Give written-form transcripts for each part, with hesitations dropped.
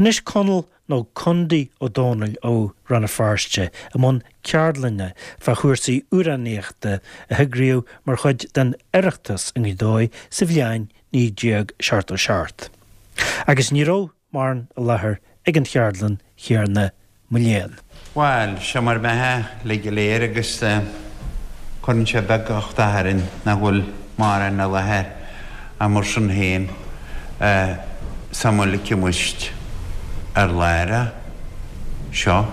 Anois Conall nó Condaí Ó Dónaill ó Rann na Feirste i mbun ceardlainne fá chúrsaí amhránaíochta a heagraíodh mar chuid den Oireachtas i nGaoth Dobhair sa bhliain 1977. Agus ní raibh mórán i láthair ag an cheardlann chéanna, mo léan. Bhuel, seo mar bheatha uilig go léir agus cuireann sé beag uchtach orainn nach bhfuil mórán i láthair ach mar sin féin samhlaigh muid ar láthair seo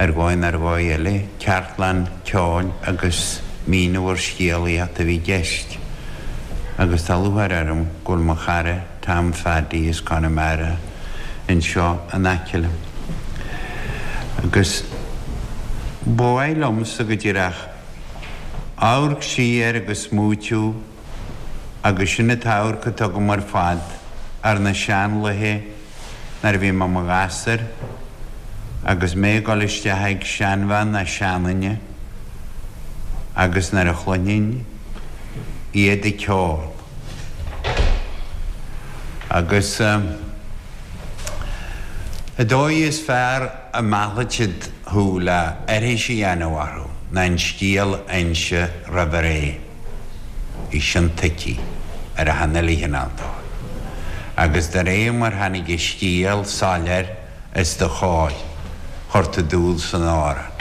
ar dhóigh nó ar dhóigh eile, ceardlann ceoil agus míniú ar scéalaíocht a bhí i gceist agus tá lúcháir orm go bhfuil mo chara Tom Phaddy as Conamara anseo in aice liom. Agus ba mhaith liomsa go díreach amharc siar agus smaoitiú agus sin an t-amharc atá agam ar fad ar na seanlaethe nuair a bhí mé i mo ghasúr agus mé ag dul isteach ag seanbhean ná seanduine agus nuair a chluinfinn iad ag ceol. Agus an dóigh is fearr a mheallfadh siad thú le aithris a dhéanamh orthu ná an scéal a inse roimh ré. Bhí sin tuigthe ar achan uile chineál dóigh. Agus de réir mar tháinig an scéal soiléir os do chomhair, chuir tú dúil san amhrán.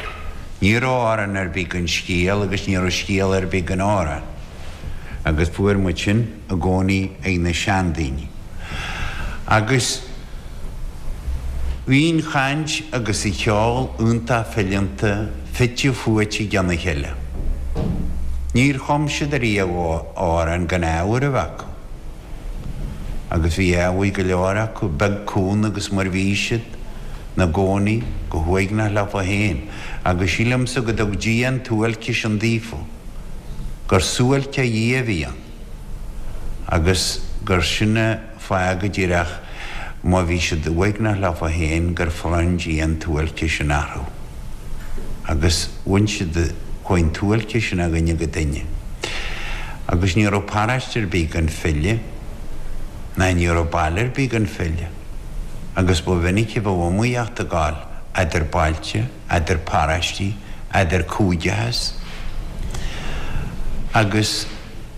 Ní raibh amhrán ar bith gan scéal agus ní raibh scéal ar bith gan amhrán. Agus fuair muid sin i gcónaí ag na seandaoine. Agus bhí an chaint agus an cheol iontach fileanta, fite fuaite i gcionn a chéile. Níor chum siad ariamh amhrán gan ábhar a bheith acu. Agus bhí ábhar go leor acu, beag cúng agus mar bhí siad 'na gcónaí go huaigneach leofa féin. Agus sílimse go dtug Dia an tsuáilce sin daofa. gur suáilce ó Dhia a bhí ann agus gur sin an fáth go díreach má bhí siad uaigneach leofa féin gur bhronn Dia an tsuáilce sin orthu agus bhain siad, chuaigh an tsuáilce sin ó dhuine go duine agus ní raibh paráiste ar bith gan file ná ní raibh baile ar bith gan file agus ba mhinic a bheadh iomaíocht ag gabháil eadar bailte. eadar paráistí, eadar cúigeachas, agus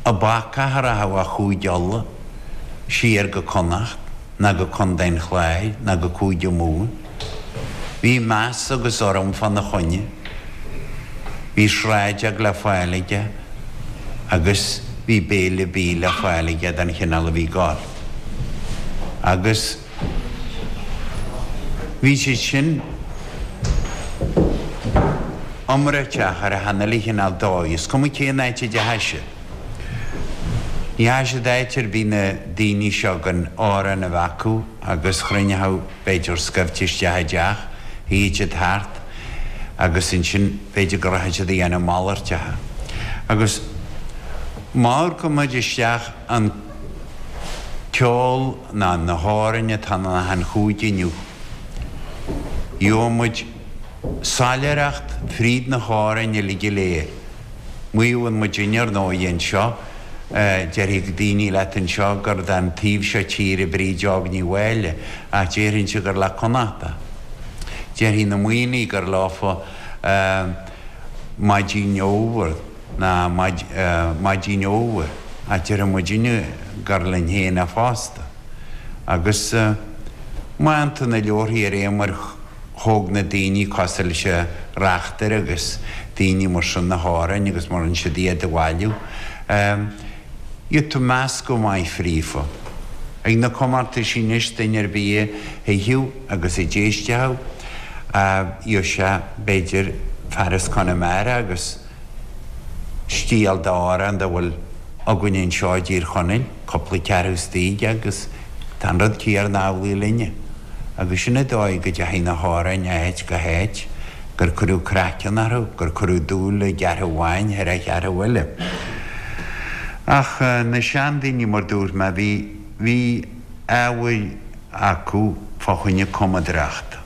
an bacach a rachadh ó Chúige Uladh siar go Connacht ná go Contae an Chláir ná go Cúige Mumhan. Bhí meas agus urraim fána choinne. Bhí sráideog le fáil aige agus bhí béile bídh le fáil aige don chineál a bhí ag gabháil. Agus. Bhí siad sin iomráiteach ar achan uile chineál dóigh, is cuma cén áit a dteachaidh siad. Ní dheachaidh siad áit ar bith na daoine seo gan amhrán a bheith acu agus chruinneochadh b'fhéidir scaifte isteach i dteach, shuíodh siad thart agus ansin b'fhéidir go rachadh siad a dhéanamh malairteacha. Agus má amharcann muid isteach an ceol ná na hamhráin atá in achan chúige inniu. Gheobhaidh muid soiléireacht fríd na hamhráin uilig go léir. Maíonn muidinne ar ndóigh anseo, déarfaidh daoine leat anseo gur den taobh seo tíre Bríd Óg Ní Mháille ach déarfainnse gur le Connachta. Déarfaidh na Muimhnigh gur leofa Maidin Fhómhair. ná Maidin Fhómhair, ach déarfaidh muidinne gur linn féin é fosta. Agus má fhaigheann tú na leabharthaí ar aon mar thóg na daoine cosúil leis an Reachtaire agus daoine mar sin na hamhráin agus mar rinne siad iad a bhailiú, gheobhaidh tú meascadh maith fríofa. Ag na comórtaisí anois duine ar bith a thuigfeadh agus a d'éistfeadh, gheobhaidh sé b'fhéidir fear as Conamara agus. stíl d'amhrán dá bhfuil againn anseo i dTír Chonaill, cúpla ceathrú istigh agus tá an rud céarna amhlaidh linne. Agus sin an dóigh go dteachaigh na hamhráin ó áit go háit, gur cuireadh craiceann orthu, gur cuireadh dúil i gceathrú amháin thar an cheathrú eile. Ach na seandaoine, mar dúirt mé, bhí, bhí ábhar acu fá choinne cumadóireachta.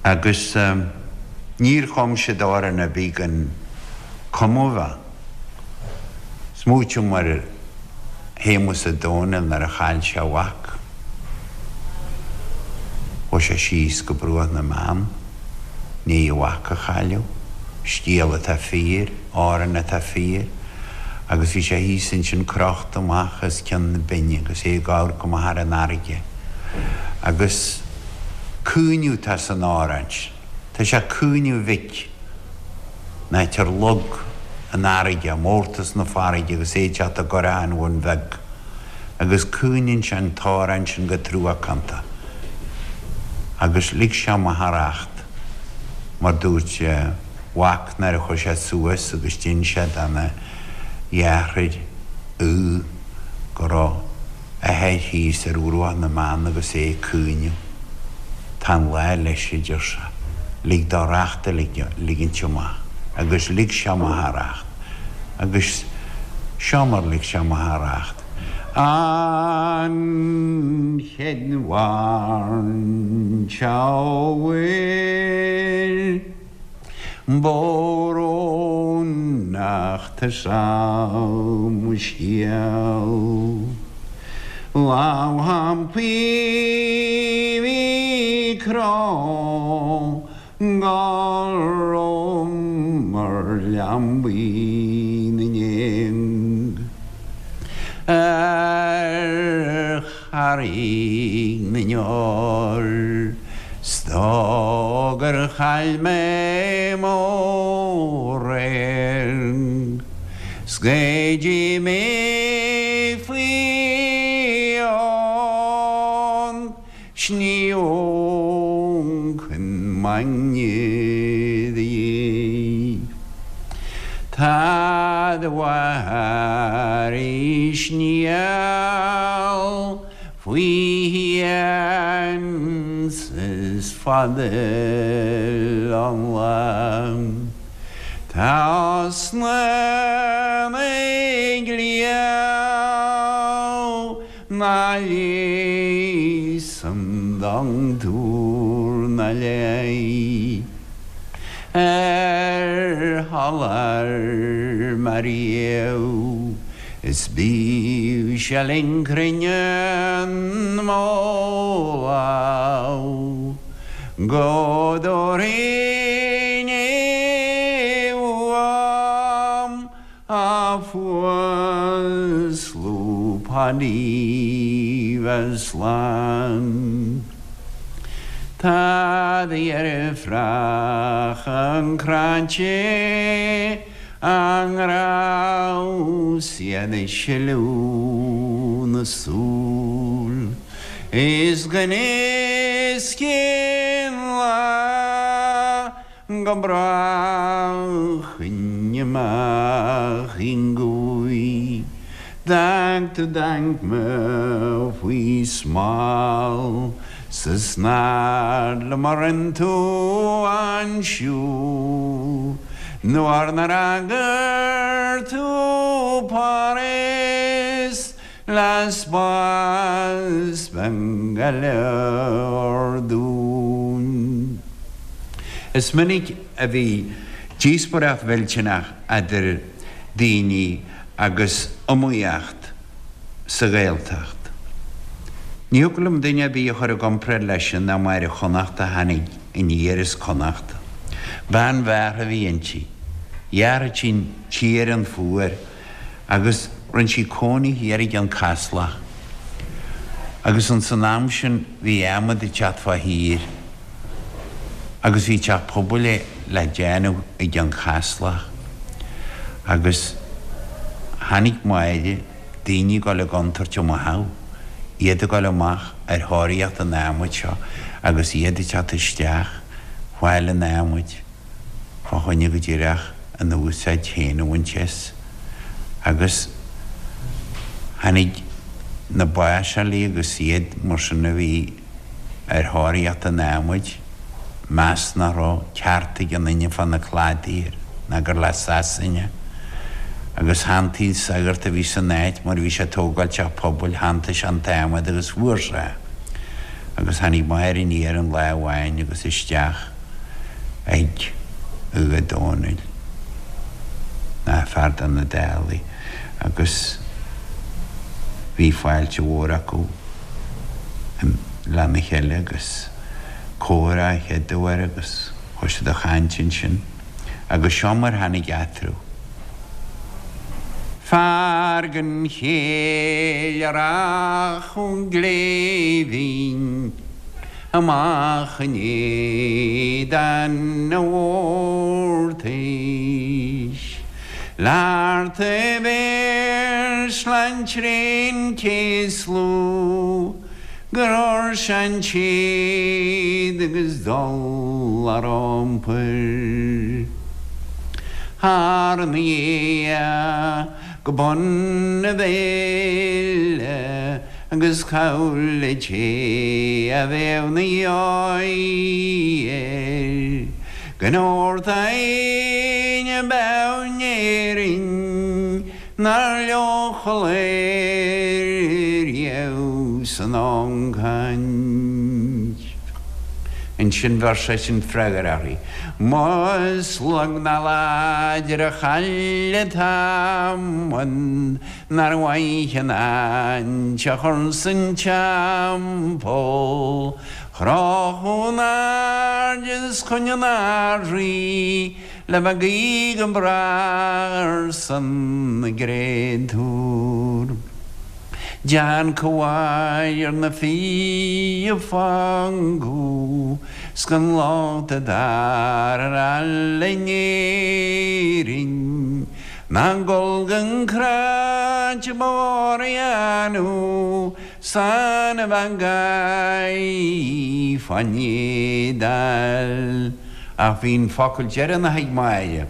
Agus níor chum siad amhrán ar bith gan cumadh a bheith. Smaoitim ar Shéamus Ó Domhnaill nuair a chaill sé a mhac. Chuaigh sé síos go Bruach na mBeann, i ndiaidh a mhac a chailleadh, scéal atá fíor, amhrán atá fíor, agus bhí sé thíos ansin crochta amach os cionn na binne agus é ag amharc amach ar an fharraige. Agus caoineadh atá san amhrán sin. Tá sé ag caoineadh a mhic, an áit ar leag an fharraige, mórtas na farraige agus é ag teacht i gCurrach an Bhun Bheag. Agus caoineann sé an t-amhrán sin go truacánta. Agus lig sé amach a racht, mar dúirt a mhac nuair a chuaigh sé suas agus d'inis sé dona dheartháir Aodh go raibh a athair thíos ar bhruach na mBeann agus é ag caoineadh. Tá an lá leis, a deir sé. Lig dó racht a ligint amach. Agus lig sé amach a racht. Agus seo mar lig sé amach a racht. An chéad bhaint óir. Brónach tá mo scéal. Lamhampaí bhí cró gorm mar leanbaí na ngéag ar Charraig na nDeor 's dóigh gur chaill mé mo radharc 's go dtí mé faoi an sniomh chun m'aigne de. Tá do mháthair i sníall faoi shéan 's is fada an lá. Tá osna na gcliabh na leigheasann dochtúir na léi ar sholáthar mar fhiadh is bíodh sé linn cruinneann mo lámh go dtabharfainn é uaim A fuaslú Paidí bheith slán. Tá do dheirfiúracha cráite á ngrá 's iad ag sileadh na súl is gan fhios cén lá Go brách amach i ngaoth D'fhág tú d'aicme faoi smál 'S is nár liom a rinne tú an siúl Nuair nár fhreagair tú Páras Le spás beag go leor dúinn. Is minic a bhí díospóireacht mhillteanach eadar daoine agus iomaíocht sa Ghaeltacht. Ní thiocfadh liom duine ar bith a chur i gcomparáid leis sin ná Máire Chonnacht a tháinig aniar as Connacht. Bean bhearrtha a bhí inti. Dheartha tinn tír an fuar. agus rinne sí cónaí thiar i gCeann Caslach agus ins an am sin bhí adhmad ag teacht fá thír agus bhí teach pobail le déanamh i gCeann Caslach agus tháinig Máire, daoine ag dul i gcontúirt i mo theach, iad ag dul amach ar thóraíocht an adhmaid seo agus iad ag teacht isteach fáil an adhmaid. fá choinne go díreach a n-úsáid féin a bhaint as, agus tháinig na báiseálaí agus iad mar sin a bhí ar thóraíocht an adhmaid, meas nach raibh ceart ag aon duine fá na cladaí ná gur le Sasana, agus shantaigh an sagart a bhí san áit mar bhí sé ag tógáil teach pobail, shantaigh sé an t-adhmad agus fuair sé é. Agus tháinig Máire aniar an lá amháin agus isteach. ag Aodh Ó Dónaill ná fear de na Dálaigh agus bhí fáilte mhór acu lena chéile agus. Comhrá a chéad uair agus chuaigh siad a chaint ansin agus seo mar tháinig eatarthu. Fear den chéill a rachadh gléibhinn amach in éadan a mhórtais. Leart a bhéar sláint réin céaslú gur fhuair sé an téad agus dul ar iompar thar na ghéa go bun a bhéil agus chabhail le té a bheadh 'na dheoidh air go ndóirteadh éinne beo in Éirinn nár leochail air riamh san ancaint. Ansin bheir seisean freagra uirthi, Más lag ná láidir a chaill an t-adhmad nár mhaith an áint a chur san teampall, Chrochadh in airde is chun an Ard-Rí Le bheith ag guí go bráth ar son na gcréatúr. Dean comhair ar na fir a fágadh 's gan locht a d'fhear ar fhail in Éirinn Ná gol gan cráit ba mhór a dhéanamh San a bheith ag fán éadáil. Ach bhí an focal deireanach ag Máire.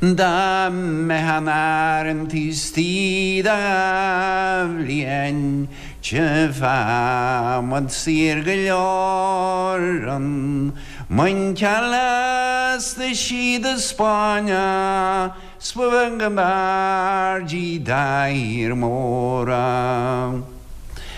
Dá mbeifeá in Árainn taobh istigh de dha bhliain tchífeá muid saor go leor an muinceal lasta sí do Spáinne 'S ba bheag ab fhearr di dá thír móra.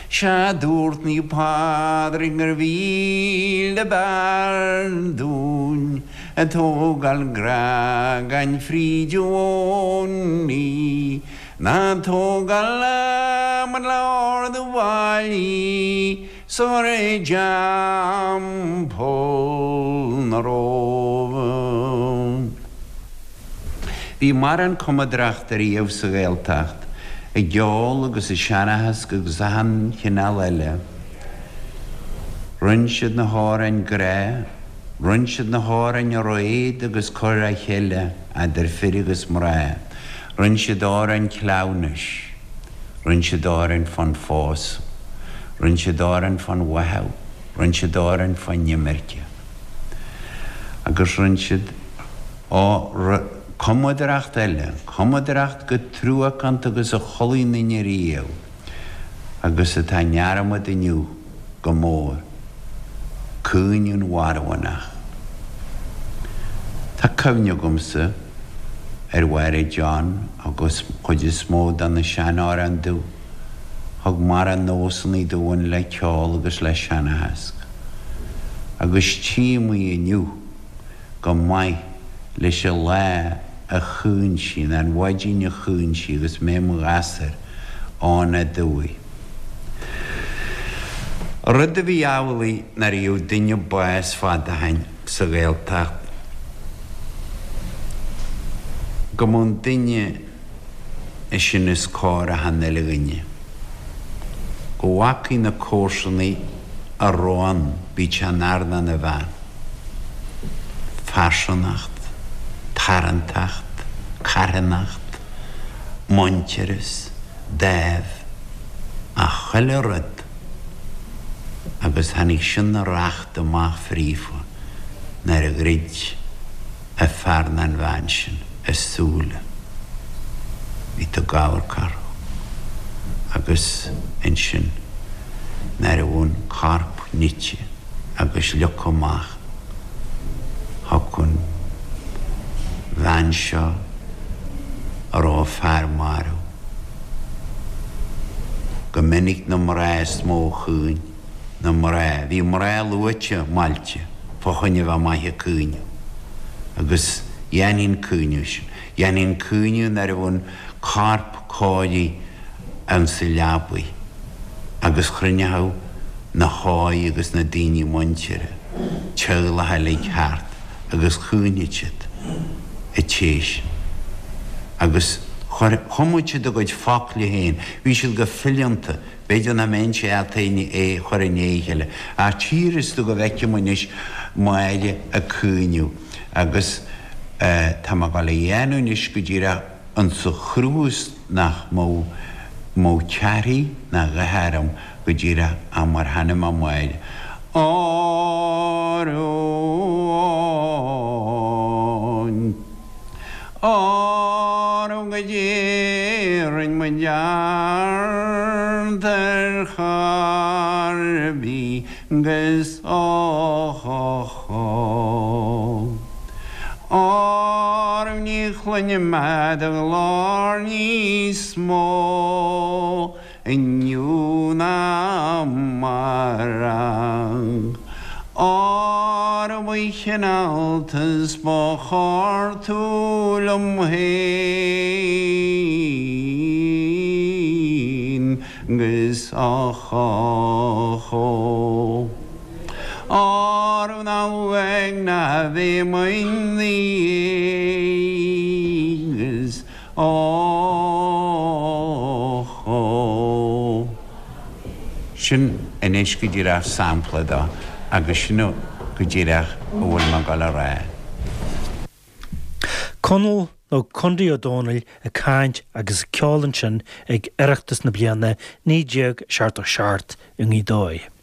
Sea dúirt Naomh Pádraig gur mhíle b'fhearr dúinn a tógáil grá gan fríd i bhfónaí ná tógáil adhmad le ardú bhallaí 's a chur i dteampall na Róimhe. Bhí mórán cumadaireachta riamh sa Ghaeltacht, i gceol agus i seanchas agus achan chineál eile. Rinn siad na hamhráin grá, rinn siad na hamhráin réad agus cur a chéile eadar fir agus mná, rinn siad amhráin cleamhnais, rinn siad amhráin fán phósadh, rinn siad amhráin fán bháthadh, rinn siad amhráin fán imirce. Agus rinn siad. Á, cumadaireacht eile, cumadaireacht chomh truacánta agus a chualaidh aon duine riamh, agus atá i ndearmad inniu go mór, Caoineadh an Mharbhánach. Tá cuimhne agamsa ar Mháire John agus chuid is mó de na sean-amhráin domh. Thug mórán nósanna dúinn le ceol agus le seanchas. Agus tchím í inniu. go maith leis an lá a chaoin sí, nó an mhaidin a chaoin sí agus mé i mo ghasúr ann aduaidh. Rud a bhí amhlaidh nuair a gheobhadh duine bás fad ó shoin sa Ghaeltacht, go mbeadh an duine sin os comhair achan uile dhuine. Go bhfacaidh na comharsanaigh a raibh ann, bíodh sé ina fhear nó ina bhean. Pearsanacht, tarrantacht, carthanacht, muintearas, dáimh, a chuile rud agus tháinig sin a racht amach fríofa nuair a dhruid a fear ná an bhean sin a súile. Bhí tú ag amharc orthu agus ansin nuair a bhí an corp nite agus leagtha amach thiocfadh an bhean seo a raibh a fear marbh. Go minic na mná is mó a chaoin. na mná. Bhí mná luaite maillte fá choinne bheith maith ag caoineadh. Agus dhéanfaí an caoineadh sin. Dhéanfaí an caoineadh nuair a bhí an corp cóirithe ann sa leabaidh. Agus chruinneochadh. Na hóig agus na daoine muinteartha, teaghlach uilig thart agus chaoineadh siad a téis agus chuir, chumadh siad a gcuid focla féin, bhí siad go fileanta, b'fhéidir nach mbeinnse ábalta é a chur i ndiaidh a chéile ach tchífeas tú go bhfeicim anois Máire ag caoineadh agus tá mé ag dul a dhéanamh anois go díreach insa chruth is nach mbeadh mbeadh cearthaí ná a dhath orm go díreach ach mar chan mé Máire. Óró Óró goidé rinn muid ort ar chor ar bith 'gus óchóchó. Óró ní chluinim do ghlór níos mó inniu ná amárach. Óró ba chineálta 's ba chóir tú liom féin 'gus óchóchó. Óró ná uaidh ná bheidh mo dhiaidh 'gus Óchó. Sin anois go díreach sampla de agus sin go díreach a bhfuil mé ag dul a rá. Conall nó Condaí Ó Dónaill ag caint agus ag ceol ansin ag Oireachtas na bliana 1977 i nGaoth Dobhair.